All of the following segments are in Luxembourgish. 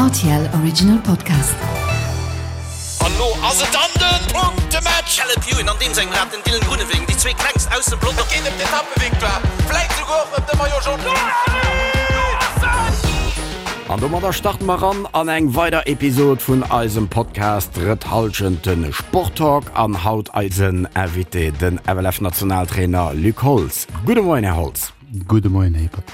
RTL Original Podcast. An lo ass et dann den Punktematch! Caleb Ewan an deem sengem Rad, den Dylan Groenewegen, déi zwee klengst aus dem Pelotong. Et geet ëm d'Etappevictoire, vläit souguer och ëm de Maillot Jaune. An domadder starte mer ran an eng weider Episod vun eisem Podcast Drëtt Hallschent, de Sporttalk. An haut eisen Invité, den FLF-Nationaltrainer Luc Holtz. Gudde Moien, Här Holtz. Gudde Moien, Här Hippert.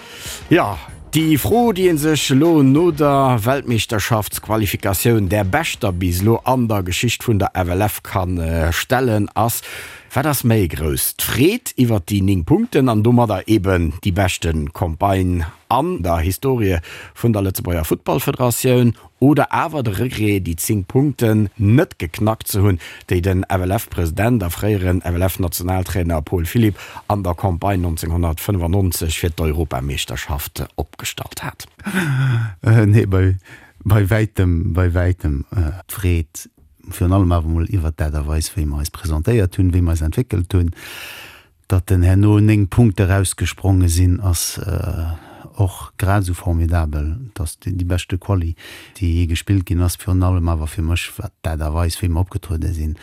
Jo, déi Fro, déi ee sech elo no der Weltmeeschterschaftsqualifikatioun, där beschter bis elo an der Geschicht vun der FLF, ka stellen, ass, Wat ass méi grouss, d'Freed iwwert déi 9 Punkten an domadder eben déi beschte Campagne an der Historie vun der Lëtzebuerger Futtballfederatioun, Oder awer de Regret, déi 10 Punkten net geknackt ze hunn, déi den FLF-President a fréieren FLF-Nationaltrainer Paul Philipp an der Campagne 1995 fir d'Europameeschterschaft opgestallt hat. Nee, bei bei wäitem, bei wäitem d'Freed, virun allem awer emol iwwert d'Aart a Weis, wéi mer eis presentéiert hunn, wéi mer eis entwéckelt hunn. Datt en herno 9 Punkte erausgespronge sinn, ass och grad esou formidabel. Et ass déi beschte Quali, déi jee gespillt ginn ass. Virun allem awer fir mech, wat d'Aart a Weis, wéi mer opgetruede sinn,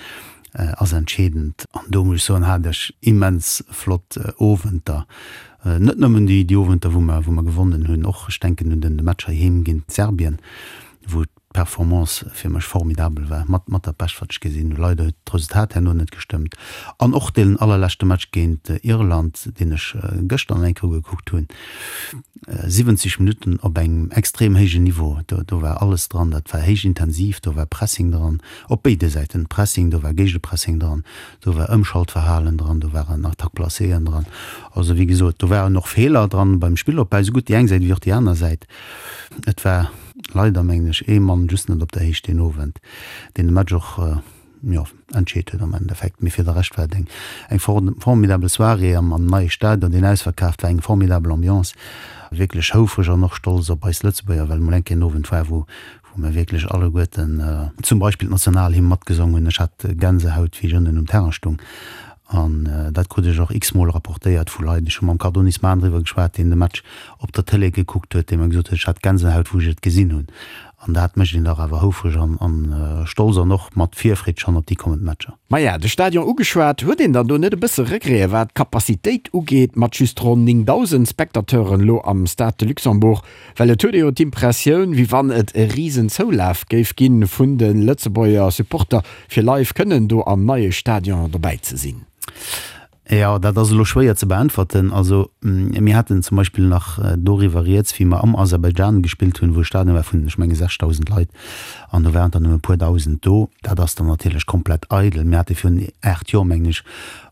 ass entscheedend. An do muss ech soen, hat ech immens flott Owenter. Net nëmmen déi Owenter, wou mer gewonnen hunn, och, ech denken un de Match heiheem géint Serbien, wou d'Performance fir mech formidabel war, mat mat dat bescht wat ech gesinn hunn. Leider huet d'Resultat herno net gestëmmt an och deen allerleschte Match géint Irland, deen ech gëschter nach eng Kéier ugekuckt hunn, 70 Minutten op engem extrem héijen Niveau, do do war alles dran, dat war héich intensiv, do war Pressing dran, op béide Säiten Pressing, do war Géigepressing dran, do war Ëmschaltverhalen dran, do waren Attaque-placéeën dran. Also wéi gesot, do waren och Feeler dran beim Spillopbau, esougutt déi eng Säit wéi och déi aner Säit. Et war leider, mengen ech, ee Mann just net op der Héicht deen Owend, deen de Match och, jo, entscheet huet am Endeffekt. Mee fir de Rescht war et eng, eng formidabel Soirée am, am neie Stadion, deen ausverkaaft war, eng formidabel Ambiance. Wierklech houfreg an och stolz op eis Lëtzebuerger, well emol eng Kéier en Owend war, wou, wou mir wierklech alleguerten zum Beispill d'Nationalhymn matgesong hunn. Ech hat Gänsehaut, wéi ech ënnen um Terrain stung. An dat krut ech och x-mol rapportéiert vu Leit. Ech hu mam Cardonis Mahn driwwer geschwat, deen de Match op der Tëlee gekuckt huet, dee mer gesot huet, ech hat Gänsehaut, wou ech et gesinn hunn. An dat mécht een dach awer houfreg an stolz an och mat Virfreed schonn op déi kommend Matcher. Maja, de Stadion ugeschwat, huet een dann do net e bësse Regrete wat d'Capacitéit ugeet, mat just ronn 9.000 Spectateuren elo am Stade de Luxembourg? Well et huet ee jo d'Impressioun, wéi wann et e risen Zoulaf géif ginn vun de Lëtzebuerger Supporter, fir live kënnen do am neie Stadion dobäi ze sinn. Jo, dat ass elo schwéier ze beäntwerten. Also mir haten zum Beispill nach doriwwer rieds, wéi mer am Aserbaidschan gespillt hunn, wou e Stadion war vun, ech menge 6.000 Leit, an do waren der nëmme e puer Dausend do. Dat ass dann natierlech komplett eidel. Mir hate virun 8 Joer, mengen ech,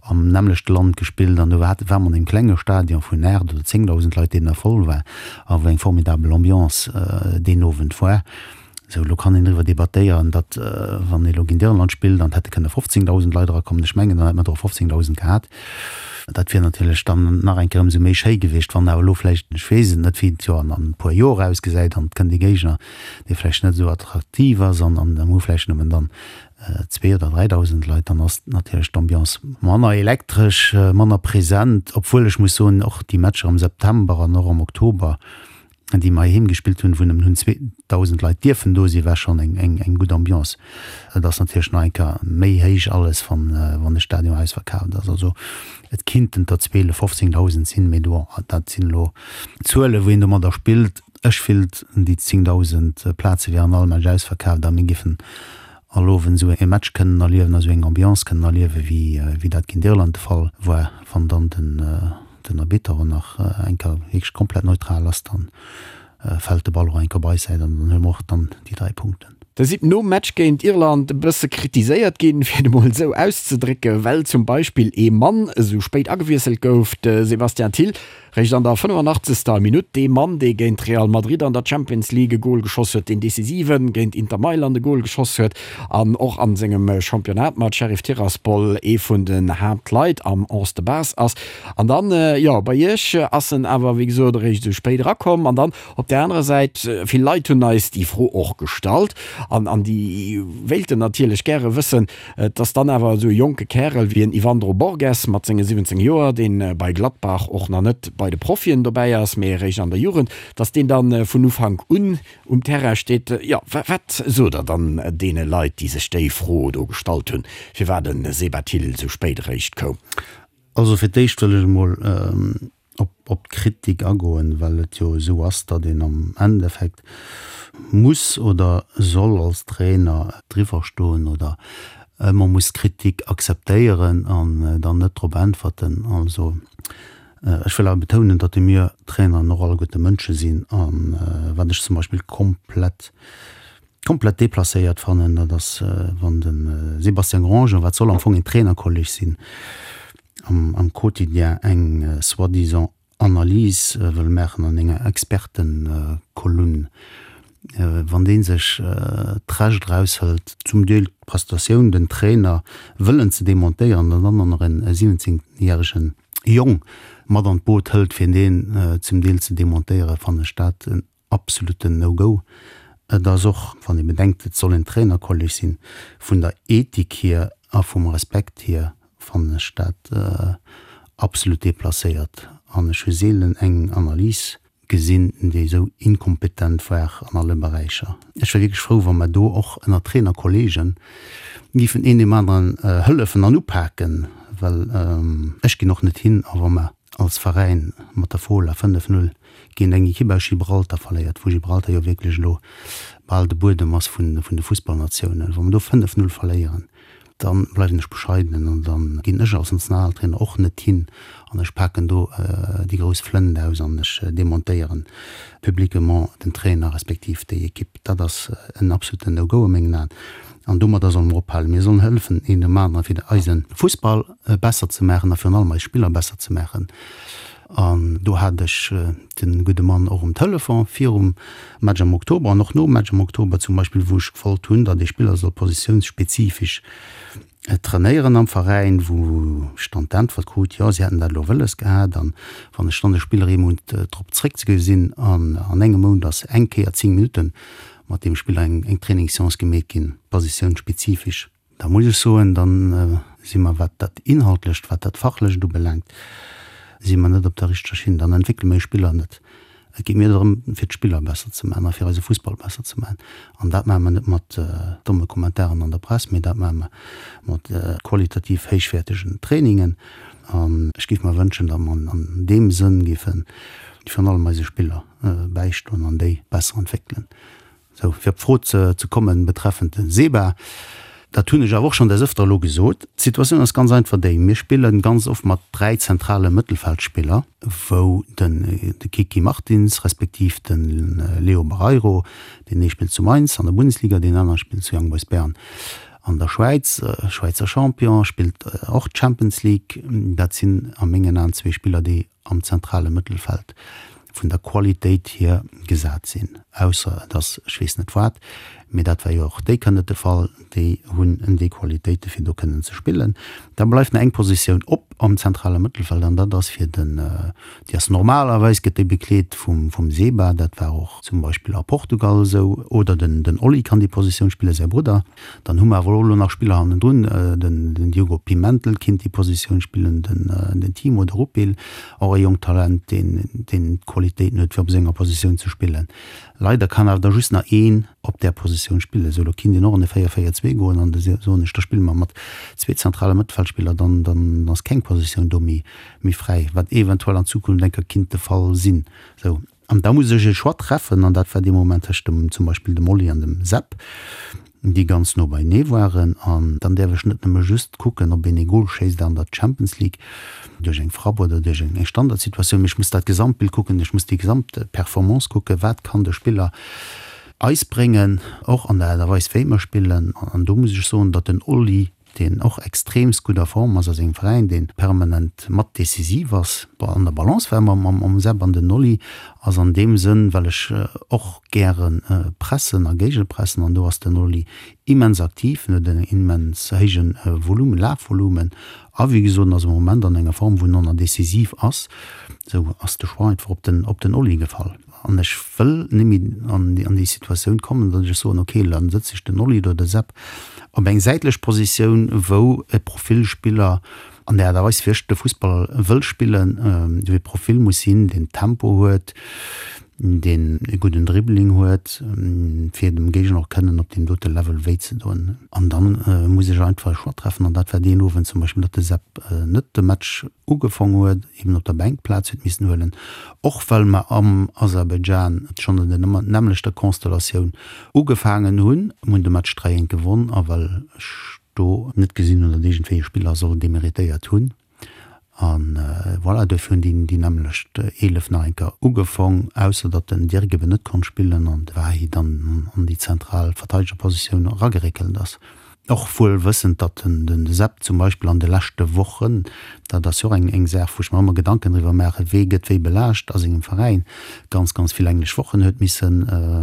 am nämmlechte Land gespillt an do war war mer an engem klenge Stadion vun 8 oder 10.000 Leit, deen da voll war a wou eng formidabel Ambiance deen Owend war. Sou, elo kann een driwwer debattéieren, datt wann ee elo géint Irland spillt an et hätte kënne 15.000 Leit erakommen, ech mengen, dann hätt mer der och 15.000 gehat. Dat wier natierlech dann nach eng Kéier ëmsou méi schéi gewiescht, wann awer elo vläicht, ech weess et net, wéi et jo an e puer Joer ausgesäit an et kënnt ee Géigner, dee vläicht net esou attraktiv ass an an hu vläicht nëmmen dann zwee oder 3.000 Leit, dann ass natierlech d'Ambiance manner elektresch, manner present, obwuel ech muss soen, och déi Matcher am September an och am Oktober, déi mer heiheem gespillt hunn, wou nëmmen hunn 2.000 Leit dierfen do sinn, war schonn eng eng eng gutt Ambiance. Et ass natierlech nach eng Kéier méi héich alles, wann wann de Stadion ausverkaaft ass. Also et kinnten der 12, 15.000 sinn, mee do dat sinn elo Zuelen, wou een domadder spillt. Ech fillt, déi 10.000 Plaze wieren all Match ausverkaaft a mir géifen all Owend esou e Match kënnen erliewen a sou eng Ambiance kënnen erliewen, wéi wéi dat géint Irland de Fall war. Wann dann den den Arbitter och nach eng Kéier wierklech komplett neutral ass, dann fält de Ball och eng Kéier op eis Säit an dann huele mer och dann déi 3 Punkten. Der sidd nom Match géint Irland e bësse kritiséiert ginn, fir et emol esou auszedrécken, well zum Beispill ee Mann esou spéit agewiesselt gouf, de Sébastien Thill, réischt an der 85. Minutt. Dee Mann, dee géint Real Madrid an der Champions League e Gol geschoss huet, deen decisiven géint Inter Mailand e Gol geschoss huet an och a sengem Championnat mat Sheriff Tiraspol ee vun den Haaptleit am Onze de base ass. An dann, jo, bei Iech ass en awer, wéi gesot, eréischt esou spéit erakomm. An dann op där anerer Säit, vill Leit hunn eis déi Fro och gestallt. An, an déi wéilten natierlech gäre wëssen, dass dann awer esou e jonke Kärel wéi en Yvandro Borges mat senge 17 Joer, dee bei Gladbach och nach net bei de Profien dobäi ass, mee eréischt an der Jugend, dass deen dann vun Ufank un um Terrain steet. Jo, wat sot Der dann deene Leit, déi sech déi Fro do gestallt hunn, firwat de Seba Thill esou spéit eréischt koum? Also fir d'éischt wëll ech emol op d'Kritik agoen, well et jo esou ass, datt een am Endeffekt muss oder soll als Trainer driwwer stoen oder ëmmer muss Kritik akzeptéieren an dann net drop äntwerten. Also ech wëll awer betounen, datt mir Traineren och alleguerte Mënsche sinn a wat ech zum Beispill komplett komplett deplacéiert fannen, dat ass wann de Sébastien Grandjean, wat soll am Fong een Trainerkolleg sinn, am Quotidien eng soi-disant Analys wëll maachen an enger Expertenkolumn, wann dee sech d'Recht eraushëlt, zum Deel d'Prestatioun, den Trainer wëllen ze demontéieren an dann och nach en 17 järegen Jong mat an d'Boot hëlt, fir deen zum Deel ze demontéieren, fannen ech dat en absoluten No-Go. Et ass och, wann ee bedenkt, et soll en Trainerkolleg sinn, vun der Ethik hier a vum Respekt hier fannen ech dat absolut deplacéiert. An ech hu seelen eng Analys gesinn, déi esou inkompetent war an alle Beräicher. Ech wär wierklech frou, wa mer do och ënner Trainerkollegen géifen een deem aneren hëllefen an upaken, well ech ginn och net hin a wa mer als Veräin mat der Fola 5, 0 géint eng Ekipp aus Gibraltar verléiert, wou Gibraltar jo wierklech elo bal de Buedem ass vun de Fussballnatiounen, wa mer do 5, 0 verléieren, da bleiwen ech bescheidenen an da ginn ech als Nationaltrainer och net hin an ech paken do déi grouss Flënt aus an ech demontéieren publiquement den Trainer respektiv déi Ekipp. Dat ass en absoluten No-Go a mengen Aen an domadder solle mer ophalen. Mir sollen hëllefen een dem aneren, fir eise Fussball besser ze maachen a virun allem eis Spiller besser ze maachen. An do hat ech de gudde Mann och um Telefon virum Match am Oktober an och nom Match am Oktober zum Beispill, wou ech gewollt hunn, datt ee Spiller soll positiounsspezifisch trainéieren am Veräin, wou ech dann d'Äntwert krut, jo, si hätten dat elo wëlles gehat. An wann ech dann de Spiller ee Mount drop zréckgi sinn an an engem Mount ass eng Kéier 10 Minutte mat deem Spiller eng Trainingsseance gemeet ginn, positiounsspezifisch, Da muss ech soen, da si mer, wat dat Inhaltlecht, wat dat Fachlecht ubelaangt, si mer net op der richteger Schinn. Dann entwéckele mer eis Spiller net. Et geet mir drëm, fir d'Spiller besser ze maachen a fir eise Fussball besser ze maachen. An dat maache mer net mat domme Kommentaren an der Press, mee dat maache mer mat qualitativ héichwäertegen Trainingen. An ech géif mer wënschen, datt mer an deem Sënn géife virun allem eise Spiller bäistoen an déi besser entwéckelen. Sou, fir op d'Fro ze kommen betreffend de SEBA, dat hunn ech awer och schonn des Ëfter elo gesot, d'Situatioun ass ganz einfach déi, Mir spille ganz oft mat 3 zentrale Mëttelfeldspiller, wou den de Kiki Martins respektiv de Leo Barreiro, deen ee spillt zu Mainz an der Bundesliga, deen anere spillt zu Young Boys Bern an der Schwäiz, Schwäizer Champion, spillt och d'Champions League, dat sinn a mengen Aen zwee Spiller, déi am zentrale Mëttelfeld vun der Qualitéit hier gesat sinn, ausser et ass ech weess net wat, mee dat war jo och déi Kéier net de Fall, déi hunn déi Qualitéite fir do kënnen ze spillen. Da bleift nach eng Positioun op am zentrale Mëttelfeld an dat ass fir den, déi ass normalerweis gëtt déi bekleet vum vum Seba, dat war och zum Beispill a Portugal esou, oder den den Oli kann déi Positioun spillen, säi Brudder. Dann hu mer awer och elo nach Spiller hannendrun, den Diogo Pimentel kinnt déi Positioun spillen, den Timo de Rupil, och e jonkt Talent, deen d'Qualitéiten huet, fir op senger Positioun ze spillen. Leider kann awer da just nach een op där Positioun spillen. Esou, elo kinnt een och an e 4-4-2 goen an da soen ech, da spille mer mat zwee zentrale Mëttelfeldspiller, dann dann ass keng Positioun do méi fräi, wat eventuell an Zukunft eng Kéier kinnt de Fall sinn. Esou. An da muss ech e Choix treffen, an dat war dee Moment tëscht dem, zum Beispill dem Oli an dem Sepp, déi ganz no beienee waren. An dann däerf ech net nëmme just kucken, ob een ee Gol schéisst an der Champions League duerch eng Frapp oder duerch eng Standardsituatioun, mee ech muss dat Gesamtbild kucken, ech muss déi gesamt Performance kucken, wat kann de Spiller eis bréngen, och an der Aart a Weis wéi mer spillen. An do muss ech soen, datt den Oli deen och extreemst gutt a Form ass a sengem Veräin, dee permanent mat decisiv ass, an der Balance war mam Seb an den Oli ass an deem Sënn, well ech och gäre pressen a géigepressen an do ass den Oli immens aktiv, en huet en immens héije Volumen, Lafvolumen a wéi gesot, en ass am Moment an enger Form, wou en och nach decisiv ass. Esou ass de Choix einfach op den Oli gefall. An ech wëll net méi an déi Situatioun kommen, datt ech soen, okay, dann sëtze ech den Oli oder de Sepp op eng säitlech Positioun, wou e Profilspiller an der Aart a Weis, wéi ech de Fussball wëll spillen, wéi e Profil muss sinn, deen Tempo huet, deen e gudden Dribbling huet, fir dem Géigner och kënnen op deem dote Level wéi ze doen. An dann muss ech einfach e Choix treffen. An dat war deen Owend zum Beispill, datt de Sepp net de Match ugefong huet, eben op der Bänk Plaz huet missen huelen, och well mer am Aserbaidschan schonn an der nämmlechter Constellatioun ugefaangen hunn. Mir hunn de Match 3 eent gewonn a well ech do net gesinn hunn, datt iergendwéi e Spiller soll demeritéiert hunn. A voilà, duerfir hunn déi déi nämmlecht 11 nach eng Kéier ugefong, ausser datt den Dirk eben net konnt spillen an de Wahi dann an déi zentral Verteidegerpositioun erageréckelt ass. Och wuel wëssend, datt den Sepp zum Beispill an de leschte Wochen, dat ass jo och eng Saach, wou ech mer ëmmer Gedanken driwwer maachen, wee gëtt wéi belaascht a sengem Veräin, ganz, ganz vill englesch Wochen huet misse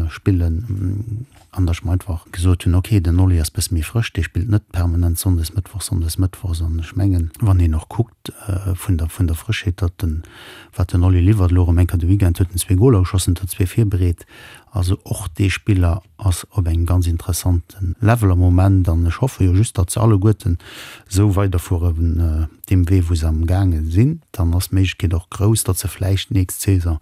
spillen. An datt ech mer einfach gesot hunn, ok, den Oli ass bësse méi frësch, dee spillt net permanent sonndes, mëttwochs, sonndes, mëttwochs. An ech mengen, wann een och kuckt vun der, vun der Frëschheet, datt den, wat den Oli liwwert, elo erëm eng Kéier de Weekend huet en zwee Goler geschossen, huet der zwee virbereet. Also och dee Spiller ass op engem ganz interessante Level am Moment an ech hoffe jo just, datt se alleguerten esou weiderfueren deem Wee wou se am gaange sinn. Dann ass d'Méiglechkeet och grouss, datt se vläicht nächst Saison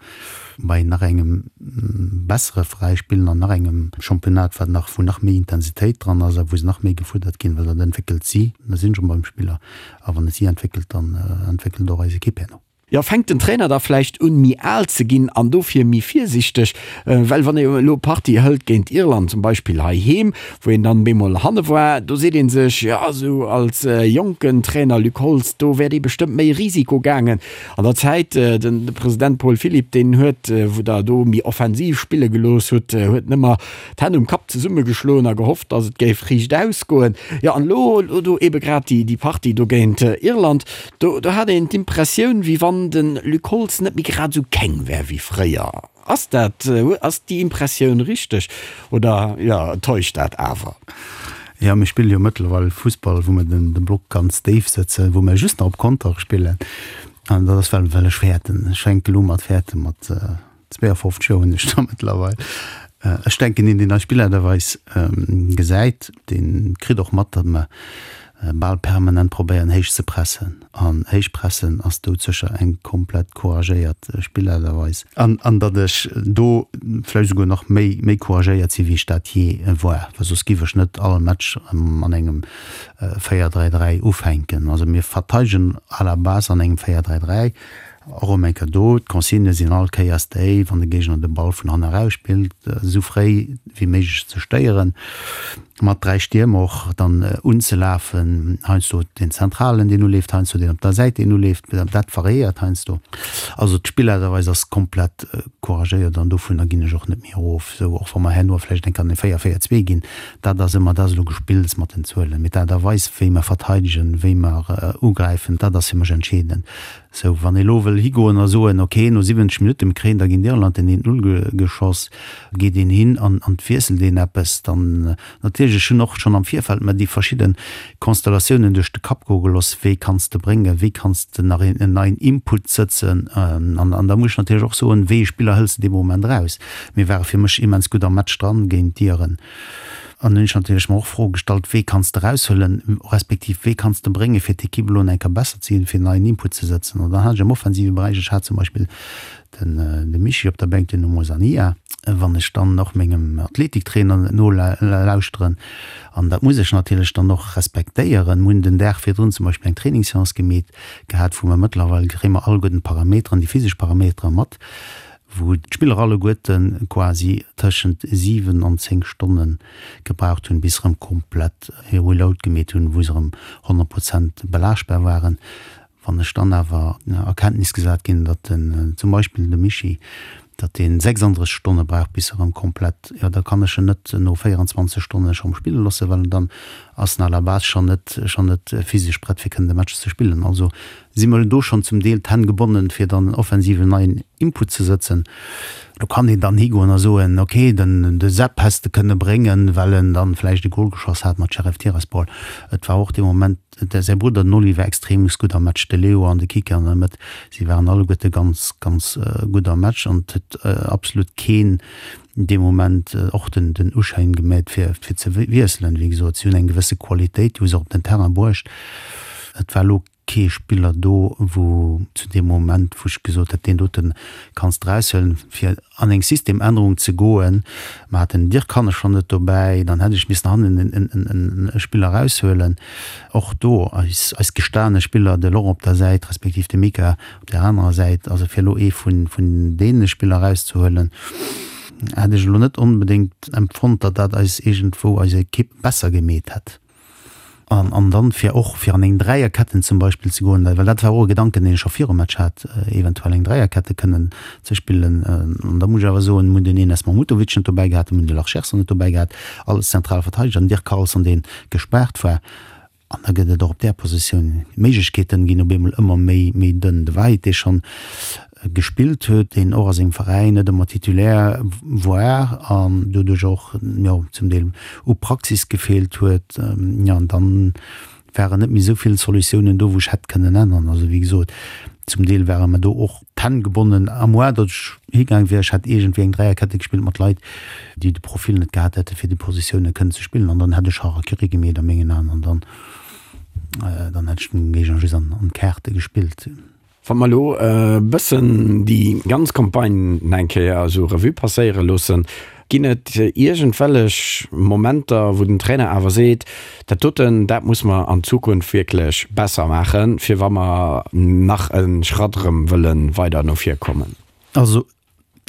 bei nach engem bessere Veräi spillen an nach engem Championnat, wat nach, wou nach méi Intensitéit dran ass a wou se nach méi gefuerdert ginn, well dat entwéckelt si. Da sinn ech erëm beim Spiller a wann et si entwéckelt, dann entwéckelt och eis Ekipp herno. Jo, fänkt den Trainer da vläicht un méi al ze ginn an dofir méi virsichteg? Well wann ee elo Partie hëlt géint Irland zum Beispill heiheem, wou een dann bemol hanne war, do seet ee sech, jo esou als jonken Trainer Luc Holtz, do wäert ee bestëmmt méi Risiko gaangen. An der Zäit, den President Paul Philipp, deen huet, wou der do méi offensiv spille gelooss hutt, huet nëmmer d'Hänn um Kapp zesummegeschloen a gehofft, datt et géif riicht ausgoen. Jo, an elo, elo do ebe grad déi Partie do géint Irland, Do do hat een d'Impressioun, wéi wann de Luc Holtz net méi grad esou keng wär wéi fréier. Ass dat, ass déi Impressioun richteg oder, jo, täuscht dat awer? Jo, mir spille jo mëttlerweil Fussball, wou mer den de Block ganz déif sëtzen, wou mer just nach op Konter spillen. An dat ass well well ech fäerten. Ech fänke elo mat fäerte mat 52 Joer hunn ech da mëttlerweil. Ech denken, een, deen eis Spillerweis gesäit, dee kritt och mat, datt mer bal permanent probéieren, héich ze pressen. An héich pressen ass doudsécher eng komplett couragéiert Spillerweis. An datt ech do vläicht esouguer nach méi, méi couragéiert sinn, wéi ech dat jee war, well soss giff ech net all Match an engem 4-3-3 ufänken. Also mir verteidegen à la base an engem 4-3-3. Och erëm eng Kéier do, d'Consignë sinn all Kéiers déi, wann de Géigner de Ball vun hanne eraus spillt, esou fréi wéi méiglech ze stéieren, mat 3 Stiermer och dann unzelafen, heiansdo deen Zentralen, deen uleeft, heiansdo deen op der Säit, deen uleeft, dat variéiert heiansdo. Also d'Spillaart a Weis ass komplett couragéiert an dovunner ginn ech och net méi erof, esou och wa mer herno vläicht eng Kéier an e 4, 4, 2 ginn, dat ass ëmmer, dat ass elo Gespills mat den Zuelen, mee d'Aart a Weis, wéi mer verteidegen, wéi mer ugräifen, dat ass fir mech entscheedend. Sou, wann ee lo wëll higoen a soen, ok, no 70 Minutte, mir kréien da géint Irland den 1, 0 geschoss, geet een hin an an wiesselt een eppes, dann natierlech, ech hunn och schonn am Virfeld mer déi verschidde Konstellatiounen duerch de Kapp goe geloss, wéi kanns de bréngen, wéi kanns de nach een en neien Input sëtzen an an da muss ech natierlech och soen, wéi ee Spiller hëls de dee Moment eraus. Mir ware fir mech immens gutt am Match dran géint d'Iren. An hunn ech natierlech mer och Froe gestallt, Wee kanns de eraushuelen, respektiv wee kanns de bréngen, fir d'Ekipp elo eng Kéier besser ze ginn, fir en neien Input ze sëtzen? An dann hat ech am offensive Beräich, ech hat zum Beispill den de Michi op der Bänk, den Oumou Sania. Wann ech dann och mengem Athletiktrainer nolauschteren, an dat muss ech natierlech dann och respektéieren, mir hunn den Dag virdrun zum Beispill eng Trainingsseance gemeet gehat, wou mer mëttlerweil kréie mer alleguerten d'Parameteren, déi physesch Parametere mat, wou d'Spiller alleguerte quasi tëschent 7 an 10 Stonne gebraucht hunn, bis se erëm komplett hir Reload gemeet hunn, wou se erëm 100 Prozent belaaschtbar waren. Wann ech dann awer a Kenntnis gesat ginn, datt den, zum Beispill de Michi, datt dee 36 Stonne brauch, bis e erëm komplett, jo da kann ech en net no 24 Stonne schonn spille loossen, well dann ass en à la base schonn net, schonn net physesch prett fir kënnen de Match ze spillen. Also. Si mer do schonn zum Deel d'Hänn gebonnen, fir dann offensiv en neien Input ze sëtzen. Do kann een dann higoen a soen, okay, den de Sepp häss de kënne bréngen, well en dann vläicht e Gol geschoss hat mat Sheriff Tiraspol. Et war och dee Moment, säi Brudder den Oli war extremst gutt am Match, de Leo an de Kike an der Mëtt, si waren alleguerte ganz, ganz gutt am Match an et huet absolut keen dee Moment och den den Uschäin gemeet fir fir ze wiesselen. Wéi gesot, si hunn eng gewësse Qualitéit, déi hu se och op den Terrain bruecht. Et war elo kee Spiller do, wou zu deem Moment, wou ech gesot hätt, deen dote kanns de eraushuelen, fir an eng Systemännerung ze goen. Mer haten den Dirk Hannes schonn net dobäi, dann hätt ech missen hannen en e Spiller eraushuelen. Och do eis eis gestane Spiller, de Laurent op der Säit respektiv de Mika op där anerer Säit, also fir elo ee vun vun deene Spiller erauszehuelen, hätt ech elo net onbedéngt empfonnt, datt dat eis iergendwou eis Ekipp besser gemeet hätt. An, an dann fir och fir an eng Dräierketten zum Beispill ze goen, well dat war och e Gedanken, deen ech scho virum Match hat, eventuell eng Dräierkette kënnen ze spillen. An da muss ech awer soen, mir hunn den Enes Mahmutovic net dobäi gehat, mir hunn de Larcherson net dobäi gehat, alles zentral Verteideger, den Dirk Carlson, dee gespaart war. An da gëtt et och op där Positioun, d'Méiglechkeeten ginn op eemol ëmmer méi, méi dënn. De Wahid, dee schonn gespillt huet, deen och a sengem Veräin net ëmmer Titulaire war an doduerch och, jo, zum Deel u Praxis gefeelt huet, jo, an dann waren net méi esou vill Solutiounen do, wou ech hätt kënnen änneren. Also, wéi gesot, zum Deel ware mer do och d'Hänn gebonnen, à moins datt ech higaang wier, ech hätt iergendwéi eng Dräierkette gespillt mat Leit, déi de Profil net gehat hätte fir déi Positioune kënnen ze spillen, an dann hätt ech Harakiri gemeet a mengen Aen, an dann, dann hätt ech dem Géigner just an d'Kaarte gespillt. Wa mer elo e bëssen déi ganz Campagne eng Kéier esou Revue passéiere loossen, ginn et iergendwellech Momenter, wou den Trainer awer seet, dat doten, dat muss mer an Zukunft wierklech besser maachen, fir wa mer nach e Schratt erëm wëlle weider no vir kommen? Also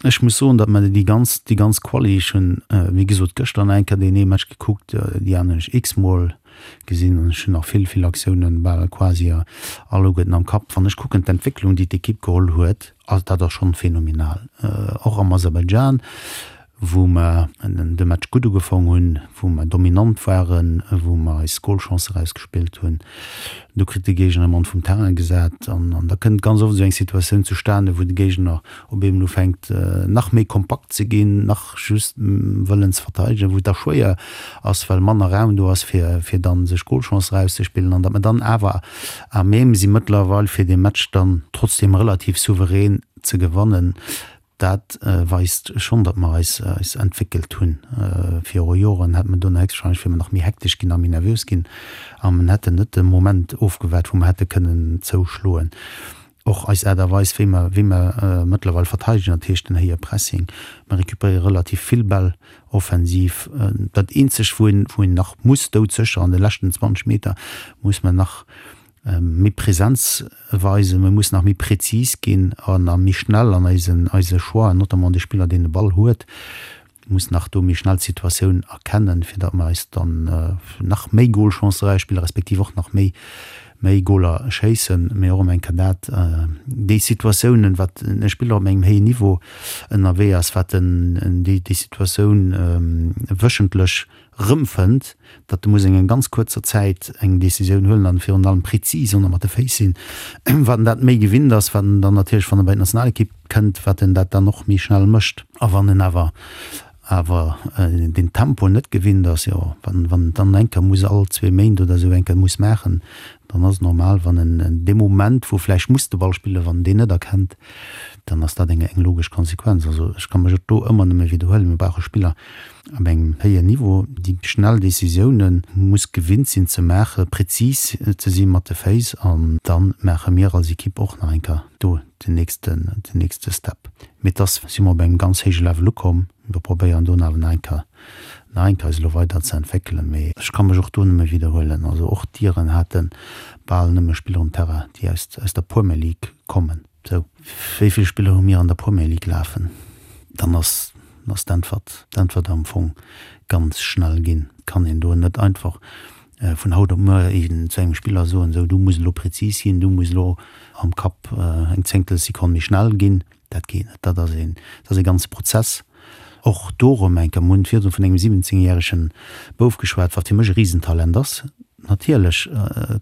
Ech muss soen, datt mer déi ganz, déi ganz Quali, ech hunn, wéi gesot, gëschter nach eng Kéier deen ee Match gekuckt, déi aner hunn ech x-mol gesinn an ech hunn nach vill, vill Aktiounen bal quasi alleguerten am Kapp. Wann ech kucken d'Entwécklung, déi d'Ekipp geholl huet, ass dat ass schonn phänomenal. Och am Aserbaidschan, wou mer de Match gutt ugefong hunn, wou mer dominant waren, wou mer eis Golchance erausgespillt hunn. Do kritt de Géigner e Mann vum Terrain gesat an da kënnt ganz oft esou eng Situatioun zustane, wou de Géigner op eemol ufänkt nach méi kompakt ze ginn, nach just wëllen ze verteidegen, wou et da schwéier ass, well manner Raum do ass, fir fir dann sech Golchance erauszespillen an datt mer dann awer à même si mëttlerweil fir dee Match dann trotzdeem relativ souverän ze gewannen. Dat weist schonn, datt mer eis eis entwéckelt hunn. Viru Joren hätt mer do nach héchstwahrscheinlech, wier mer nach méi hektesch ginn a méi nervös ginn a mer hätten net de Moment ofgewaart, wou mer hätte kënnen zouschloen. Och eis Aart a Weis, wéi mer wéi mer mëttlerweil verteidegen, dat heescht den héije Pressing, mer récupéiere relativ vill Bäll offensiv. Dat eenzegt, wou een wou een nach muss doudsécher an de leschten 20 Meter muss mer nach méi Präsenz weisen, mir mussen nach méi präzis ginn an a méi schnell an eisen eise Choixen, notamment de Spiller deen de Ball huet, muss nach do méi schnell d'Situatioun erkennen, fir datt mer eis dann nach méi Golchancen erausspillen, respektiv och nach méi méi Goler schéissen. Mee och ëm eng Kéier dat, déi Situatiounen, wat e Spiller op engem héijen Niveau ënnerwee ass, wat en déi déi Situatioun wéchentlech rëmfënnt, datt e muss eng ganz kuerzer Zäit eng Décisioun huelen an virun allem prezis an mat de Féiss sinn. Wat en dat méi gewinnt ass, wat en dann natierlech, wann e bei d'Nationalekipp kënnt, wat en dat dann och méi schnell mécht. A wann en awer awer deen Tempo net gewinnt ass, jo, wann wann en dann eng Kéier muss all zwee Méint oder esou eng Kéier muss maachen, dann ass et normal, wann en dee Moment, wou vläicht muss de Ball spillen, wann en deen net erkennt, dann ass dat eng eng logesch Konsequenz. Also ech ka mech och do ëmmer nëmme widderhuelen, Mir brauche Spiller, Op engem héijen Niveau, déi schnell Décisiounen muss gewinnt sinn ze maachen, prezis ze si mat de Féiss an da maache mir als Equipe och nach eng Kéier do den nächsten, den nächste Step. Mee et ass, si mer op engem ganz héije Level ukomm. Mir probéieren do awer nach eng Kéier, nach eng Kéier eis elo weider ze entwéckelen. Mee ech ka mech och do nëmme widderhuelen, also och d'Iren hate bal nëmme Spiller um Terrain, déi aus, aus der Premier League kommen. Sou, wéi vill Spiller hu mir an der Premier League lafen? Dann ass ass d'Äntwert d'Äntwert am Fong ganz schnell ginn. Et kann een do net einfach vun haut op muer zu engem Spiller soen, sou du muss elo prezis ginn, du muss elo am Kapp eng Zéngtelsekonn méi schnell ginn. Dat geet net. Dat ass een dat ass e ganze Prozess. Och do erëm eng Kéier, mir hunn virdru vun engem 17 järege Bouf geschwat, wat fir mech e Risentalent ass. Natierlech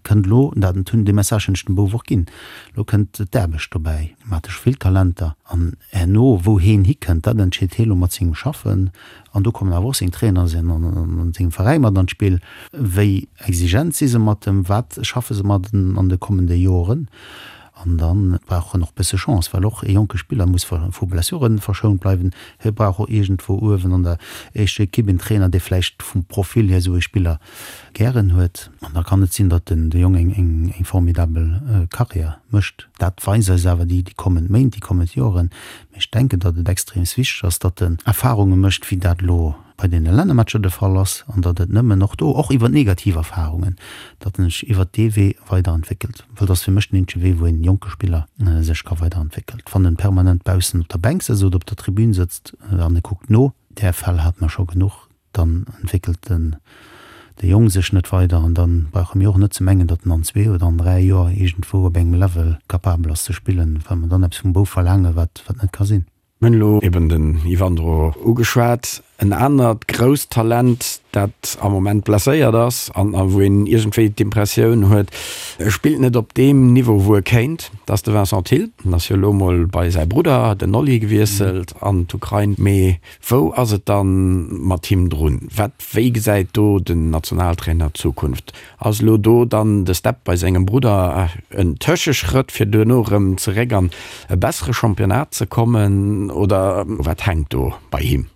kënnt elo, dat hunn, dee Message hunn ech dem Bouf och ginn, elo kënnt d'Aarbecht dobäi. Mir hate scho vill Talenter an herno, wou heen hikënnt, dat entscheet hee lo mat sengem Schaffen. An do kommen awer och seng Trainer an sengem Veräi mat an d'Spill. Wéi exigent si se mat em, wat schaffe se mat en an de kommende Joren? An da brauch en och bësse Chance, well och e jonke Spiller muss vu Blessure verschount bleiwen. Hie brauch och iergendwou uewen an der éischter Ekipp en Trainer, dee vläicht vum Profil hier esou e Spiller gären huet. An da kann et sinn, datt den de Jong eng eng formidabel Karriär mécht. Dat weisen eis awer déi kommend Méint, déi kommend Joren. Mee ech denken, datt et extreems wichteg ass, datt en Erfarunge mécht, wéi dat elo bei deene Lännermatcher de Fall ass, an datt et nëmmen och do, och iwwer negativ Erfarungen, datt en sech iwwert dee Wee weiderentwéckelt. Well dat ass fir mech den eenzege Wee, wou een jonke Spiller sech ka weiderentwéckelt. Wann en permanent baussen op der Bänk sëtzt oder op der Tribün sëtzt an e kuckt no, där Fäll hate mer scho genuch, dann entwéckelt den de Jong sech net weider an dann brauche mir och net ze mengen, datt en an zwee oder an 3 Joer iergendwou op engem Level capabel ass ze spillen, well mer dann eppes vum Bouf verlaangen, wat wat net ka sinn. Mir hunn elo eben den Yvandro ugeschwat, en anert grousst Talent, dat am Moment blesséiert ass an a wou een iergendwéi d'Impressioun huet, e spillt net op deem Niveau, wou e kéint, dat ass de Vincent Thill. En ass jo elo mol bei säi Brudder, den Oli, gewiesselt an d'Ukrain. Mee wou ass et dann mat him drun? Wat, wéi gesäit do den Nationaltrainer d'Zukunft? Ass elo do dann de Step bei sengem Brudder en Tëscheschrëtt fir duerno erëm zeréck an e bessere Championnat ze kommen oder wat hänkt do bei him?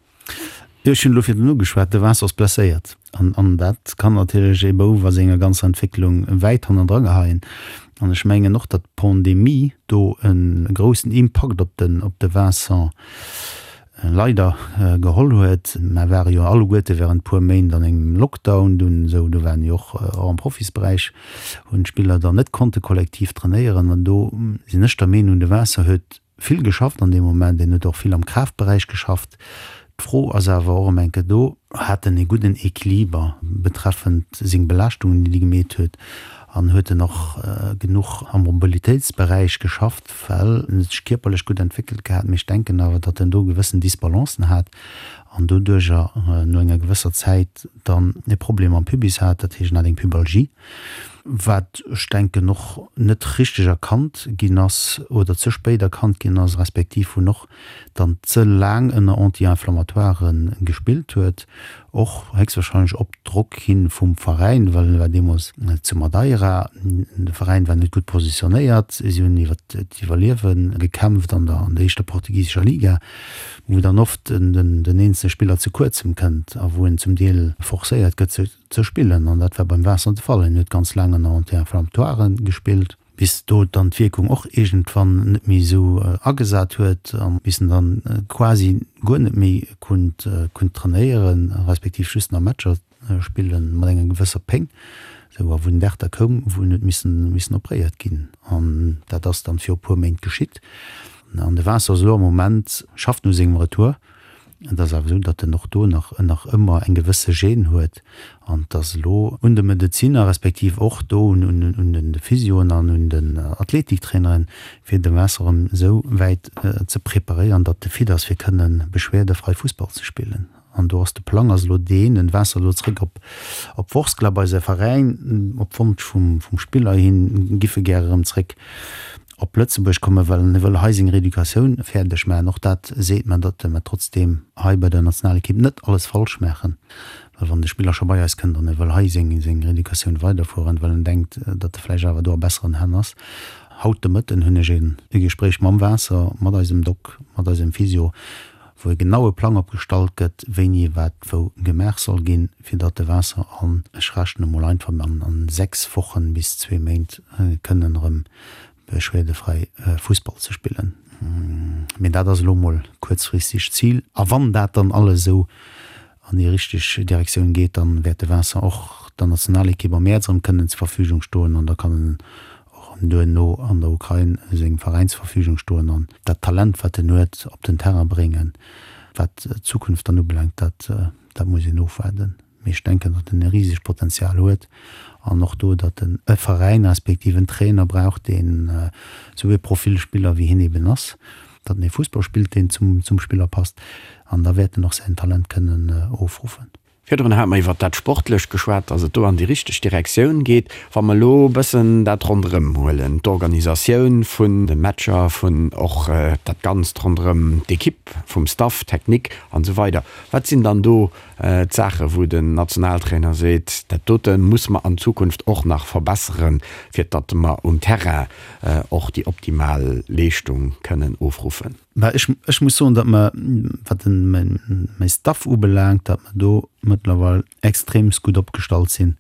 Jo, ech hunn elo virdrun ugeschwat, de Vincent ass blesséiert an an dat kann natierlech ee Bouf a senger ganzer Entwécklung wäit hannendra geheien. An ech mengen och, datt d'Pandemie do e groussen Impakt op den op de Vincent leider geholl huet. Mer ware jo alleguerte während puer Méint an engem Lockdown dunn esou, do waren jo och och am Profisberäich hunn d'Spiller dann net konnte kollektiv trainéieren an do sinn ech der Meenung, de Vincent huet vill geschafft an deem Moment, en huet och vill am Kraaftberäich geschafft. D'Fro ass awer och ëm eng Kéier do, hat en e gudden Equiliber betreffend seng Belaaschtungen, déi e gemeet huet an huet en och genuch am Mobilitéitsberäich geschafft, Well en huet sech kierperlech gutt entwéckelt gehat, mee ech denken awer, datt en do gewëssen Disbalancen hat an doduercher no enger gewësser Zäit dann e Problem am Pubis hat, dat heescht en hat eng Pubalgie, wat ech denken och net richteg erkannt ginn ass oder ze spéit erkannt ginn ass, respektiv wou en och dann ze laang ënner Anti-inflammatoiren gespillt huet, och héchstwahrscheinlech op Drock hin vum Veräin, well en war deemools zu Madeira, de Veräin war net gutt positionéiert, si hunn iwwer d'Iwwerliewe gekämpft an der an der éischter portugisescher Liga, wou dann oft den den eenzele Spiller ze kuerzem kënnt a wou en zum Deel forcéiert gëtt ze spillen an dat war beim Vincent de Fall, en huet ganz laang ënner Anti-inflammatoiren gespillt. bis do dann d'Wierkung och iergendwann net méi esou agesat huet a bis en dann quasi guer net méi konnt konnt trainéieren, respektiv just nach Matcher spille mat enger gewësser Péng, esou a wou den Dag da koum, wou en huet missen missen opréiert ginn. An dat ass dann viru puer Méint geschitt. An de Vincent ass elo am Moment, schafft u sengem Retour. Et ass awer esou, datt en och do nach nach ëmmer eng gewësse Gêne huet an et ass elo un de Medezinner, respektiv och do un un de Physioen an un den Athletiktraineren, fir de Vincent erëm esou wäit ze preparéieren, datt e fit ass, fir kënne beschwerdefrei Fussball ze spillen. An do ass de Plang ass elo deen, den Vincent elo zréck op op Vorskla bei säi Veräin, op Wonsch vum vum Spiller hin, giff e gär erëm zréck op Lëtzebuerg kommen, well en wëll hei seng Rééducatioun fäerdeg maachen. Och dat seet mer, datt mer trotzdeem hei bei der Nationalekipp net alles falsch maachen, well wann de Spiller scho bei eis kënnt an e wëll hei seng seng Rééducatioun weiderfueren, well en denkt, datt e vläicht awer do a besseren Hänn ass. Haut de Mëtten hunn ech e Gespréich mam Waasser, mat eisem Doc, mat eisem Physio, wou e genaue Plang opgestallt gëtt, wéini wat wou gemaach soll ginn, fir datt de Waasser an, ech rechnen emol einfach, an 6 Wochen bis zwee Méint kënnen erëm beschwerdefräi Fussball ze spillen. Mee dat ass elo mol kuerzfristeg d'Zil. A wann dat dann alles esou an déi richteg Direktioun geet, dann wäert de Vincent och der Nationalekipp am Mäerz erëm kënnen zur Verfügung stoen an da kann en och erëm duerno an der Ukrain sengem Veräin zur Verfügung stoen an dat Talent, wat en huet, op den Terrain bréngen. Wat d'Zukunft dann ubelaangt, dat dat muss een ofwaarden. Mee ech denken, datt en e risegt Potenzial huet an och do, datt en e Veräin respektiv en Trainer brauch, deen esou e Profil Spiller wéi hien eben ass, datt en e Fussball spillt, deen zum zum Spiller passt an da wäert en och säin Talent kënnen ofruffen. Virdrun hate mer iwwert dat Sportlecht geschwat, dass et do an déi richteg Direktioun geet. Wa mer elo e bëssen dat ronderëm huelen, d'Organisatioun vun de Matcher, vun och dat Ganzt ronderëm d'Ekipp, vum Staff technique an esou weider, wat sinn dann do d'Saache wou den Nationaltrainer seet, dat dote musse mer an Zukunft och nach verbesseren, fir datt mer um Terrain och déi optimal Leeschtung kënnen ofruffen? Bah, ech, ech muss soen, datt mer, wat den, mäin, mäi Staff ubelaangt, datt mer do mëttlerweil extremst gutt opgestallt sinn,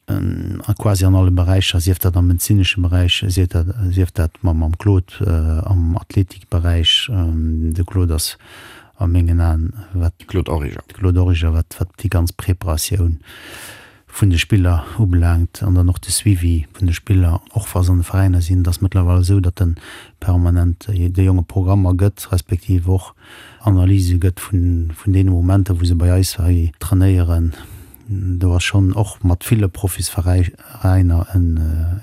a quasi an alle Beräicher, sief dat am medezinesche Beräich, sief dat, sief dat mam, mam Claude am Athletikberäich. De Claude ass a mengen Aen, wat. Claude Origer. Claude Origer, wat, wat déi ganz Preparatioun vun de Spiller ubelaangt an dann och de Suivi vun de Spiller, och wa se an de Veräiner sinn. Et ass mëttlerweil esou, datt en permanent de Jonge Programmer gëtt, respektiv och Analyse gëtt vun deene Momenter, wou se bei eis hei trainéieren. Do ass schonn och mat ville Profisveräiner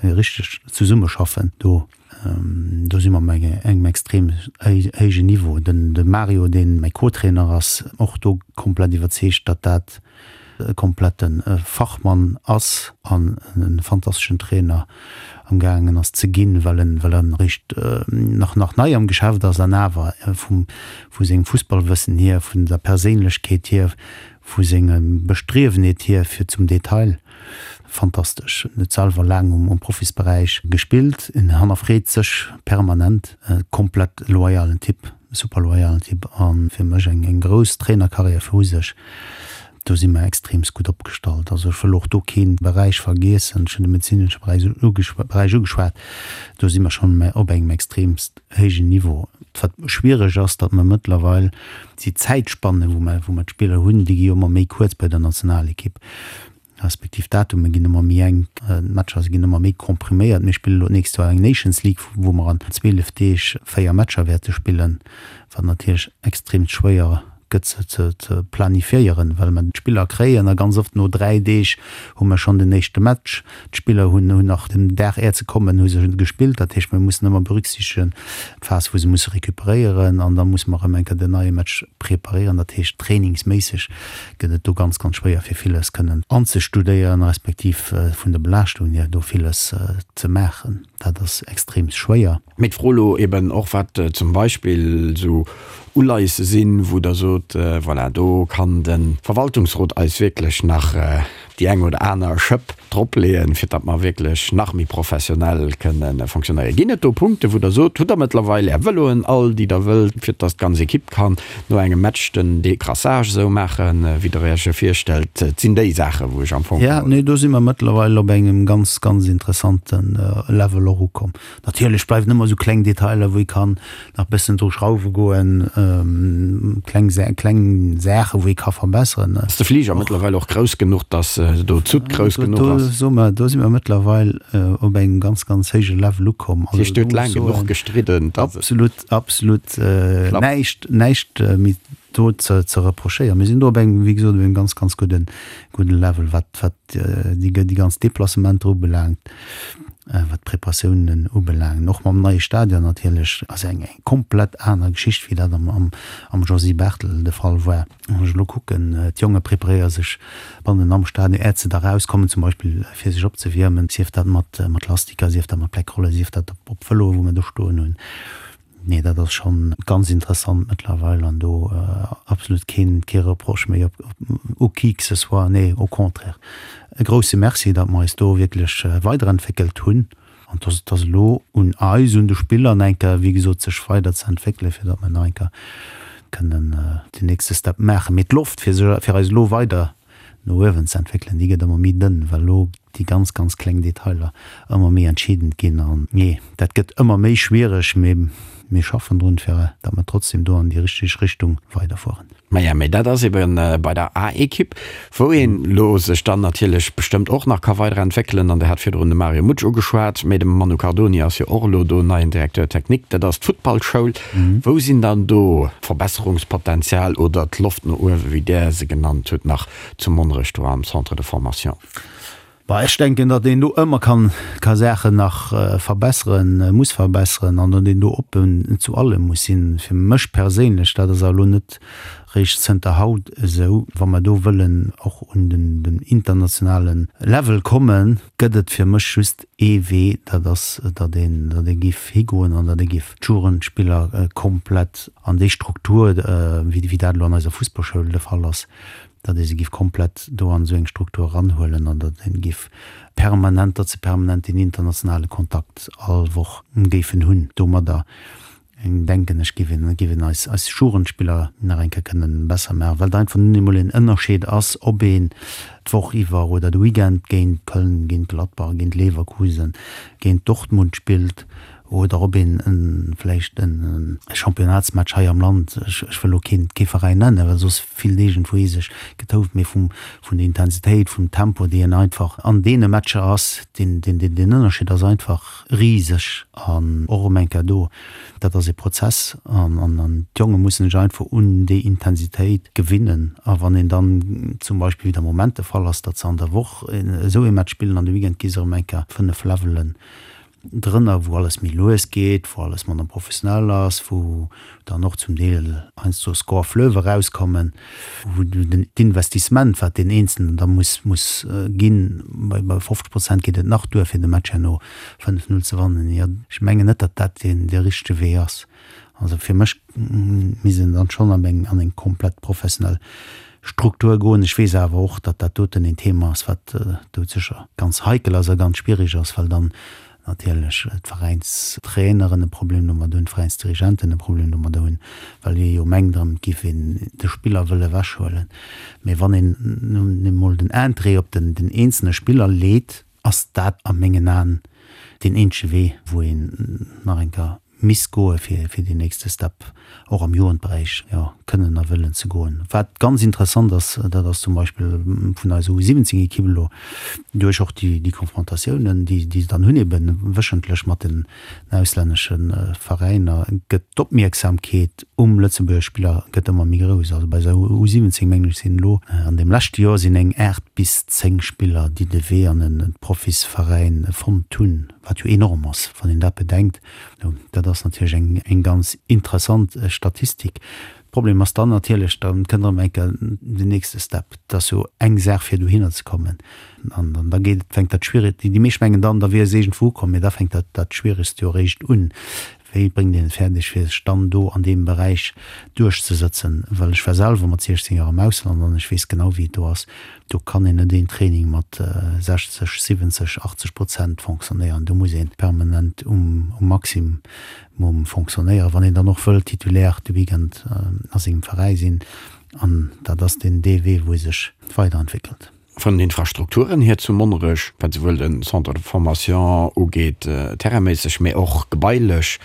e richtegt Zesummeschaffen do. Do si mer op engem extrem héijen Niveau. Den de Mario, dee mäi Co-Trainer ass, och do komplett iwwerzeegt, datt dat e komplette Fachmann ass an e fantasteschen Trainer am gaangen ass ze ginn, well en well en eréischt nach nach nei am Geschäft ass an awer vum vu sengem Fussballwëssen hier, vun der Perséinlechkeet hier, vu sengem Bestriewenheet hier fir zum Detail Fantastesch. En huet selwer laang um Profisberäich gespillt. En hannerfreet sech permanent. E komplett loyalen Typ, super loyalen Typ a fir mech eng grouss Trainerkarriär viru sech. Do si mer extreemst gutt opgestallt. Also ech wëll och do kee Beräich vergiessen. Ech hunn de medezinesche Beräich ugeschwat. Do si mer schonn op engem extreemst héijen Niveau. Wat schwiereg ass, datt mer mëttlerweil déi Zäitspanne wou mer wou mer d'Spiller hunn, déi gi jo ëmmer méi kuerz bei der Nationalekipp, respektiv d'Datume ginn ëmmer méi enk, d'Matcher ginn ëmmer méi kompriméiert. Mir spille lo d'nächst Joer eng Nations League, wou mer an 12 Deeg 4 Matcher wäerte spillen, wat natierlech extrem schwéier gëtt ze ze planifiéieren, well mer d'Spiller kréien a ganz oft no 3 Deeg hu mer schonn den éischte Match. D'Spiller hunn hunn nach den Dag är ze kommen hu se gespillt. Dat heescht, mir mussen ëmmer berücksichtegen d'Phas wou se musse recuperéieren an da musse mer erëm eng Kéier den neie Match preparéieren. Dat heescht, trainingsméisseg gëtt et do ganz, ganz schwéier fir villes kënnen anzestudéieren, respektiv vun der Belaaschtung hier do villes ze maachen. Dat ass extrem schwéier. Mee d'Fro elo eben och, wat zum Beispill esou Uleiesse sinn, wou Der sot, voilà, do kann de Verwaltungsrot eis wierklech nach déi eng oder aner Schëpp dropleeën, fir datt mer wierklech nach méi professionell kënne fonctionnéieren. Ginn et do Punkte wou Der sot, hutt Der mëttlerweil Är Vëloen all, déi Der wëllt, fir datt d'ganz Ekipp kann no engem Match den Decrassage esou maachen, wéi Der Iech e virstellt? Et sinn déi Saachen, wou ech am Fong. Jo, nee, do si mer mëttlerweil op engem ganz, ganz interessante Level och ukomm. Natierlech bleiwen ëmmer esou kleng Detailer, wou ee kann nach bëssen dru schrauwe goen, kleng kleng Saache wou ee ka verbesseren. Ass de Fliger mëttlerweil och grouss genuch, datt do d'Soute grouss genuch ass? Do soe mer, do si mer mëttlerweil op engem ganz, ganz héije Level ukomm. Dat heescht, Dir hutt laang genuch gestridden, datt et. Absolut, absolut näischt, näischt méi do ze ze reprochéieren. Mir sinn do op engem, wéi gesot, op engem ganz, ganz gudden, gudden Level, wat, wat déi, déi ganz Deplacementer ubelaangt, wat d'Preparatiounen ubelaangen. Och mam neie Stadion natierlech ass eng eng komplett aner Geschicht, wéi dat am, am, am Josy Barthel de Fall war. Wann ech elo kucken, d'Jonge preparéiere sech bannen am Stadion, äert se da rauskommen zum Beispill fir sech opzewiermen, sief dat mat, mat Lastiker, sief dat mat Bleckrolle, sief dat op, op Vëloe wou mir do stoen hunn. Nee, dat ass schonn ganz interessant mëttlerweil an do absolut keen, kee Reproche méi op, u qui que ce soit. Nee, au contraire, e grousse Merci, datt mer eis do wierklech weiderentwéckelt hunn an dass et ass elo un eis, un de Spiller nach eng Kéier, wéi gesot, sech weider ze entwéckelen, fir datt mer nach eng Kéier kënnen den nächste Step maachen. Mee d'Loft, fir sech, fir eis elo weider no uewen ze entwéckelen, déi gëtt ëmmer méi dënn, well elo déi ganz, ganz kleng Detailer ëmmer méi entscheedend ginn. An nee, dat gëtt ëmmer méi schwiereg, mee mir schaffen drun, fir datt mer trotzdem do an déi richteg Richtung weiderfueren. Maja, mee dat ass eben bei der A-Ekipp, wou een elo sech dann natierlech bestëmmt och nach ka weiderentwéckelen. An Der hat virdrun de Mario Mutsch ugeschwat, mee de Manu Cardoni ass jo och elo do neien Directeur technique. Dat ass d'Futtballschoul. Wou sinn dann do d'Verbesserungspotenzial oder d'Loft no uewen, wéi Der se genannt hutt, nach zu Monnerech do am Centre de formation? Bah, ech denken, datt een do ëmmer kann, ka Saachen nach verbesseren, muss verbesseren an datt een do oppen zu allem muss sinn. Fir mech perséinlech, dat ass awer elo net. Réischt zënter haut esou. Wa mer do wëllen och un den internationale Level kommen, gëtt et fir mech just ee Wee, dat ass, datt een, datt ee géif higoen an datt ee géif d'Jugendspiller komplett an déi Struktur, wéi dat elo an eiser Fussballschoul de Fall ass, datt ee se géif komplett do an esou eng Struktur eranhuelen an datt ee géif permanent, datt se permanent deen internationale Kontakt all Woch géifen hunn domadder. Denken ech, géif een, géif een eis, eis Jugendspiller nach eng Kéier kënnen besser maachen, well et einfach nun eemol en Ënnerscheed ass, ob een d'Woch iwwer oder de Weekend géint Köln, géint Gladbach, géint Leverkusen, géint Dortmund spillt oder ob een en, vläicht en Championnatsmatch hei am Land, ech, ech wëll elo keen, kee Veräin nennen, well soss fillt iergendwou ee sech getouft, mee vum, vun der Intensitéit, vum Tempo, dee een einfach an deene Matcher ass, deen, deen, deen Ënnerscheed ass einfach riseg an och erëm eng Kéier do, dat ass ee Prozess an an d'Jonge mussen sech einfach un déi Intensitéit gewinnen. A wann een dann zum Beispill, wéi et am Moment de Fall ass, datt se an der Woch esou ee Match spillen an de Weekend gi se erëm eng Kéier 5 Levelen drënner, wou alles méi lues geet, wou alles manner professionell ass, wou dann och zum Deel heiansdo Score fleuve erauskommen, wou den d'Investissement, wat deen Eenzelnen da muss muss ginn, bei bei 50 Prozent geet et nach duer, fir de Match herno 5, 0 ze wannen. Jo, ech mengen net, datt dat deen dee richtege Wee ass. Also fir mech misst een dann schonn an eng an eng komplett professionell Struktur goen. Ech weess awer och, datt dat doten een Thema ass, wat doudsécher ganz heikel ass a ganz schwierig ass, well dann natierlech d'Veräinstraineren e Problem domat hunn, d'Veräinsdirigenten e Problem domat hunn, well ee jo mengt erëm, et géif een de Spiller wëlle ewechhuelen. Mee wann een nun emol den Interêt op den eenzelne Spiller leet, ass dat a mengen Aen deen eenzege Wee, wou een nach eng Kéier misst goe fir fir deen nächste Step och am Jugendberäich, jo, kënnen a wëllen ze goen. Wat ganz interessant ass, dat ass zum Beispill vun eiser U17-Ekipp elo duerch och déi déi Konfrontatiounen, déi déi se dann hunn ebe wéchentlech mat den auslännesche Veräiner, gëtt d'Opmierksamkeet um Lëtzebuerger Spiller gëtt ëmmer méi grouss. Also bei eiser U17 mengen ech sinn elo an deem leschte Joer sinn eng 8 bis 10 Spiller, déi de Wee an e Profisveräin fonnt hunn. Wat jo enorm ass, wann een dat bedenkt. Dat ass natierlech eng, eng ganz interessant Statistik. Problem ass dann natierlech, da kënnt erëm eng Kéier den nächste Step. Et ass jo eng Saach, fir dohinner ze kommen. An dann da geet, fänkt dat Schwierigt, déi meescht mengen dann, da wier se iergendwou ukomm, mee da fänkt dat, dat Schwieregst jo eréischt un. Wéi bréngt een et fäerdeg, fir sech dann do an deem Beräich duerchzesëtzen? Well ech war selwer mat 16 Joer am Ausland an ech weess genau, wéi et do ass. Do kann een net een Training mat 60, 70, 80 Prozent fonctionnéieren. Do muss ee permanent um Maximum fonctionnéieren, wann een dann och wëll Titulaire de Weekend a sengem Veräi sinn. An dat ass deen dee Wee, wou ee sech weiderentwéckelt. Vun den Infrastrukturen hier zu Monnerech, wat souwuel de Centre de formation ugeet, terrainméisseg, mee och gebailech,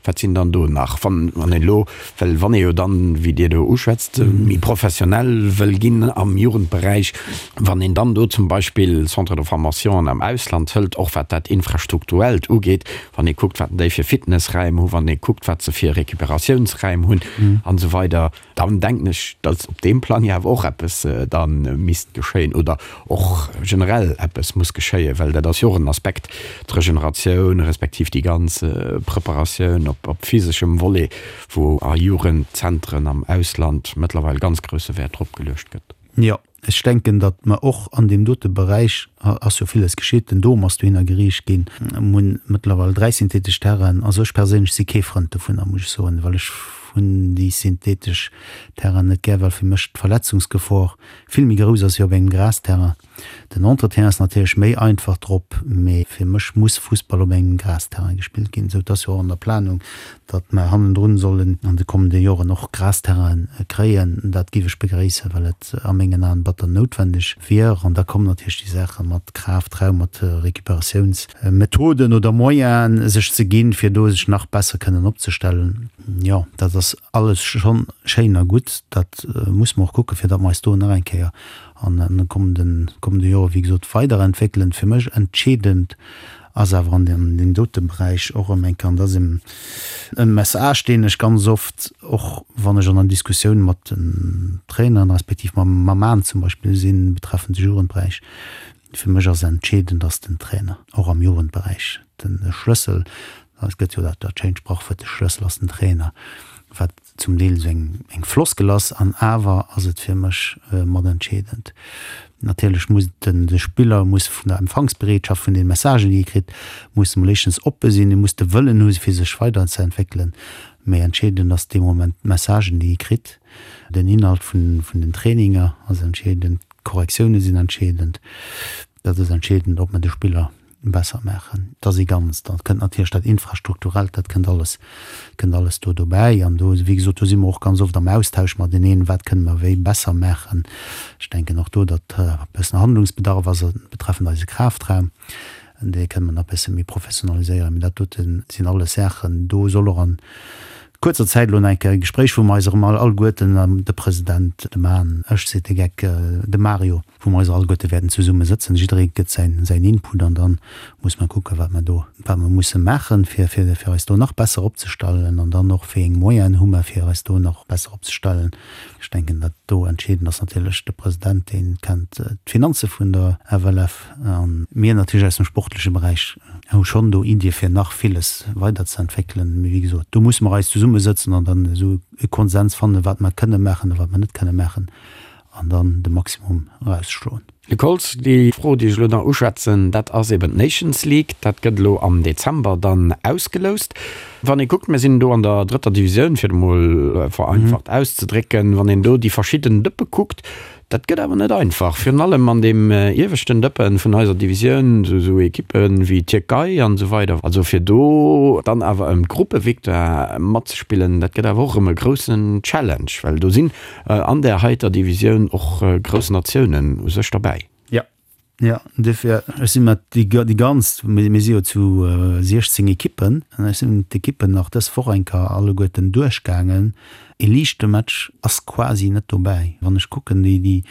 wat sinn dann do nach, wann een elo, well wann ee jo dann, wéi Dir do uschwätzt, méi professionell wëll ginn am Jugendberäich, wann een dann do zum Beispill Centres de formationen am Ausland hëlt, och wat dat Infrastrukturellt ugeet, wann ee kuckt, wat déi fir Fitnessräim hu, wann ee kuckt, wat se fir Recuperatiounsräim hunn an esou weider, Dann denken ech, datt op deem Plang jo awer och eppes da misst geschéien oder och generell eppes muss geschéien, well dat ass jo och en Aspekt, d'Regeneratioun respektiv déi ganz Preparatioun op physeschem Volet, wou a Jugendzentren am Ausland mëttlerweil ganz grousse Wäert drop geluecht gëtt. Jo, ech denken, datt mer och an deem dote Beräich, ass jo villes geschitt, den Dom ass dohinner geriicht ginn, mir hunn mëttlerweil 3 synthetesch Terrainen. Also ech perséinlech si kee Frënd dovunner, muss ech soen, well ech hunn déi synthetesch Terrainen net gär, well fir mech d'Verletzungsgefor vill méi grouss ass wéi op engem Grasterrain. Den Entretien ass natierlech méi einfach drop, mee fir mech muss Fussball op engem Grasterrain gespillt ginn. Esou, et ass jo och an der Planung, datt mer hannendrun sollen an de kommende Joren och Grasterrainen kréien. Dat géif ech begréissen, well et a mengen Aen batter noutwendeg wier. An da kommen natierlech déi Saache mat Kraftraum, mat Recuperatiounsmethoden oder Moyenen sech ze ginn, fir do sech nach besser kënnen opzestellen. Jo, dat ass alles schonn schéin a gutt. Dat muss mer och kucken, fir datt mer eis do nach eng Kéier an de kommenden, kommende Jore wéi gesot weiderentwéckelen. Fir mech entscheedend ass awer an deem dote Beräich och erëm eng Kéier, an dat ass e Message, deen ech ganz oft och, wann ech an der Diskussioun mat den Traineren respektiv mam Maen zum Beispill sinn, betreffend de Jugendberäich, fir mech ass entscheedend, ass den Trainer, och am Jugendberäich, de Schlëssel. Et gëtt jo dat schéint Sprachwuert, de Schlëssel ass den Trainer. Wat zum Deel esou eng eng Floskel ass, an awer ass et fir mech mat entscheedend. Natierlech muss den de Spiller muss vun der Empfangsbereetschaft vun den Messagen déi e kritt, muss emol éischtens oppe sinn, e muss de Wëllen hu fir sech weiderzeentwéckelen, mee entscheedend ass dee Moment d'Messagen déi e kritt, den Inhalt vun vun den Traininger ass entscheedend, d'Korrektioune sinn entscheedend, dat ass entscheedend ob mer de Spiller besser maachen. Et ass ee Ganzt. Da kënnt natierlech dat Infrastrukturellt, dat kënnt alles, kënnt alles do dobäi. An do, wéi gesot, do si mer och ganz oft am Austausch mateneen, wat kënne mer wéi besser maachen. Ech denken och do, datt e bëssen Handlungsbedarf ass betreffend eise Kraftraum. Dee kënne mer nach e bësse méi professionaliséieren. Mee dat dote sinn alles Saachen, do soll och a kuerzer Zäit elo nach eng Kéier e Gespréich, wou mer eis erëm alleguerten, de President, de Man, ech, seet de Geck, de Mario, wou mer eis alleguerte wäerten zesumme sëtzen, jidderee gëtt säin, säin Input an dann muss mer kucken, wat mer do, wat mer musse maachen, fir, fir, fir eis do nach besser opzestellen an dann och, wéi eng Moyenen hu mer, fir eis do nach besser opzestellen. Ech denken, dat do entscheedend ass natierlech de President, dee kennt d'Finanze vun der FLF a mir natierlech aus dem sportleche Beräich hu schonn do Iddie fir nach villes weiderzeentwéckelen. Mee wéi gesot, do musse mer eis zesummesëtzen an dann esou e Konsens fannen, wat mer kënne maachen a wat mer net kënne maachen. an dann de Maximum erausschloen. Luc Holtz, Déi Fro, déi ech elo nach uschwätzen, dat ass eben d'Nations League. Dat gëtt elo am Dezember dann ausgeloust. Wann ee kuckt, mir sinn do an der drëtter Divisioun, fir et emol vereinfacht auszedrécken, wann een do déi verschidden Dëppe kuckt, dat gëtt awer net einfach. Virun allem an deem ieweschten Dëppe vun eiser Divisioun, esou Ekippe wéi d'Tierkei an esou weider. Also fir do dann awer ëm d'Gruppevictoire matzespillen, dat gëtt awer och erëm e groussen Challenge, well do sinn An där heiter Divisioun och grouss Natiounen u sech derbäi. Jo, jo, duerfir, ech si mat déi déi ganz, mir si jo zu 16 Ekippen, an ech sinn d'Ekippen nach dës Woch eng Kéier alleguerten duerchgaangen. E liichte Match ass quasi net dobäi. Wann ech kucken, déi déi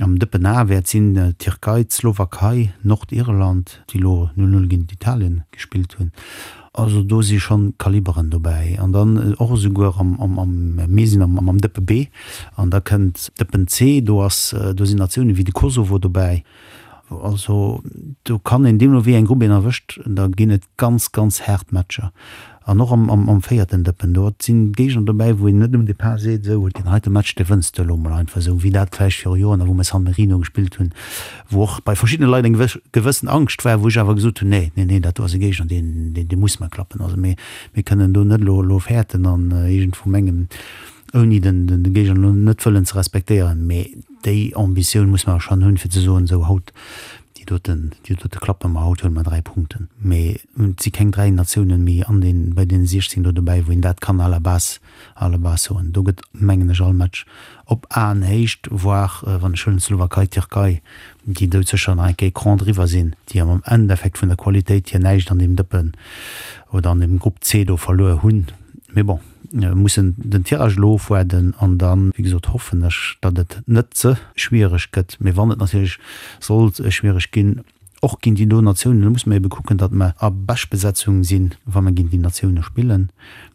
am Dëppen A wäert sinn, d'Tierkei, d'Slowakei, Nordirland, déi elo 0, 0 géint Italien gespillt hunn. Also do si schonn Kaliberen dobäi. An dann och esouguer am, am, am, mir sinn am, am Dëppe B an da kënnt Dëppen C, do ass, do sinn Natiounen wéi de Kosovo dobäi. Also do kann een, deemno wéi eng Grupp een erwëscht, da ginn et ganz, ganz haart Matcher. An och am, am, am véierten Dëppen, do sinn Géigner dobäi, wou een net um Depart seet, esou, deen heite Match, dee wënns de elo mol einfach esou, wéi dat vläicht viru Joren, wou mer San Marino gespillt hunn, wou och bei verschiddene Leit eng gewëssen Angscht war, wou ech awer gesot hunn, nee, nee, nee, dat do ass e Géigner, deen, deen, dee muss mer klappen. Also mir, mir kënnen do net elo, elo fäerten an iergendwou mengen, ouni den, den, de Géigner elo net wëllen ze respektéieren, mee déi Ambitioun muss mer schonn hunn, fir ze soen, esou haut, déi doten, déi dote klappe mer, haut huele mer 3 Punkten. Mee et si keng 3 Natiounen méi an den, bei deene 16 do dobäi, wou een dat kann à la base, à la base soen. Do gëtt, mengen ech, all Match op Aenhéicht, voire, wann ech huelen d'Slowakei, d'Tierkei, déi doudsécher nach eng Kéier Cran driwwer sinn, déi am Endeffekt vun der Qualitéit hier näischt an deem Dëppen oder an deem Grupp C do verluer hunn. Mee bon, mir mussen den Tirage elo ofwaarden an dann, wéi gesot, hoffen ech, datt et net ze schwiereg gëtt. Mee wann et natierlech sollt schwiereg ginn, Och géint déi do Natiounen, do musse mer ebe kucken, datt mer a Beschtbesetzung sinn, wa mer géint déi Natioune spillen,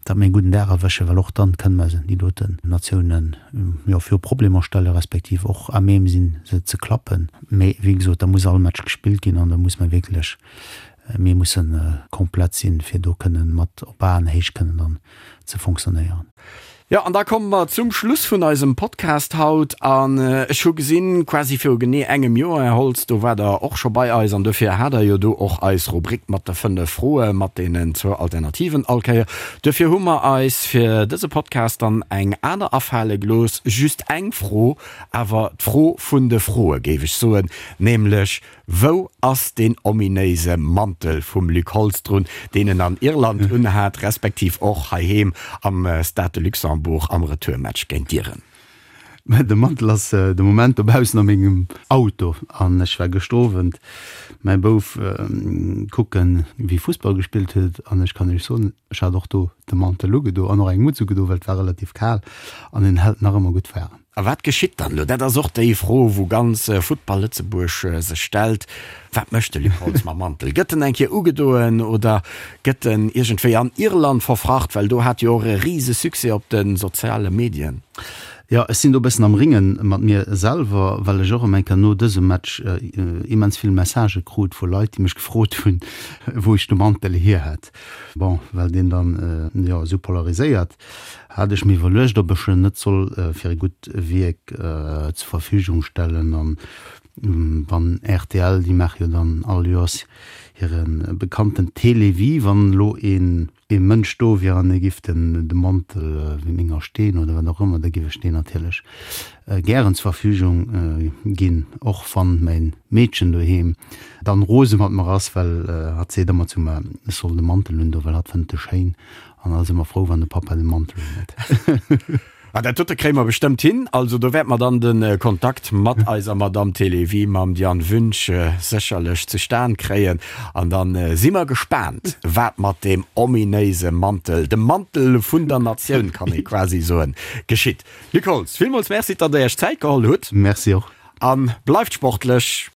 datt mer ee gudden Dag erwëschen, well och dann kënne mer déi doten Natiounen, jo, viru Problemer stelle respektiv och à même sinn, se ze klappen. Mee wéi gesot, da muss all Match gespillt ginn an da muss mer wierklech, mir musse komplett sinn, fir do kënnen mat op Aenhéicht kënnen dann ze fonctionnéieren. Jo, an da komme mer zum Schluss vun eisem Podcast haut. An ech hu gesinn, quasi viru genee engem Joer, Här Holtz, do waart Der och scho bei eis an dofir hat Der jo do och eis Rubrik mat de 5 Froe mat deenen zwou Alternativen all Kéier. Duerfir hu mer eis fir dëse Podcast dann eng aner afale gelooss, just eng Fro, awer d'Fro vun de Froe géif ech soen, nämlech, Wou ass deen ominéise Mantel vum Luc Holtz drun, deen en an Irland unhat, respektiv och heiheem am Stade de Luxembourg am Retourmatch géint d'Iren? De Mantel ass de Moment dobaussen a mengem Auto an ech war gëschter Owend mäi Bouf kucken, wéi Fussball gespillt huet an ech kann iech soen, ech hat och do de Mantel ugedo an och eng Mutz ugedo, well et war relativ kal an en hält nach ëmmer gutt waarem. A wat geschitt dann elo? Dat ass och déi Fro, wou ganz Futtball Lëtzebuerg sech stellt. Wat mécht de Luc Holtz mam Mantel? Gëtt en eng Kéier ugedoen oder gëtt en iergendwéi an Irland verfracht? Well do hat jo och e rise Succès op de soziale Medien. Jo, ech sinn do e bëssen am Ringe mat mir selwer, well ech och ëm eng Kéier no dësem Match immens vill Messagë krut vu Leit, déi mech gefrot hunn, wou ech de Mantel hier hätt. Bon, well deen dann, jo, esou polariséiert, hat ech mir iwwerluecht, ob ech en net soll fir e gutt Wierk zur Verfügung stellen. An wann rtl, déi maache jo dann all Joers hire bekannten Télévie, wann elo een ee Mënsch do wier an e giff den de Mantel wéi menger Steen oder wat och ëmmer, da giff ech deen natierlech gären zur Verfügung ginn, och wann mäin Meedchen doheem dann rose mat mer ass, well hatt seet ëmmer zu mer, ech soll de Mantel un do, well hatt fënnt e schéin an ass ëmmer frou wann de Pappa de Mantel un huet. Ah, dat dote kréie mer bestëmmt hin. Also do wäerte mer dann de Kontakt mat eiser Madamm Télévie, mam Diane Wünsch, sécherlech zustan kréien. An da si mer gespaant, wat mat deem ominéise Mantel, dem Mantel vun der Natioun, kann ee quasi soen, geschitt. Luc Holtz, villmools Merci, datt Der Iech Zäit geholl hutt. Merci och. A bleift sportlech.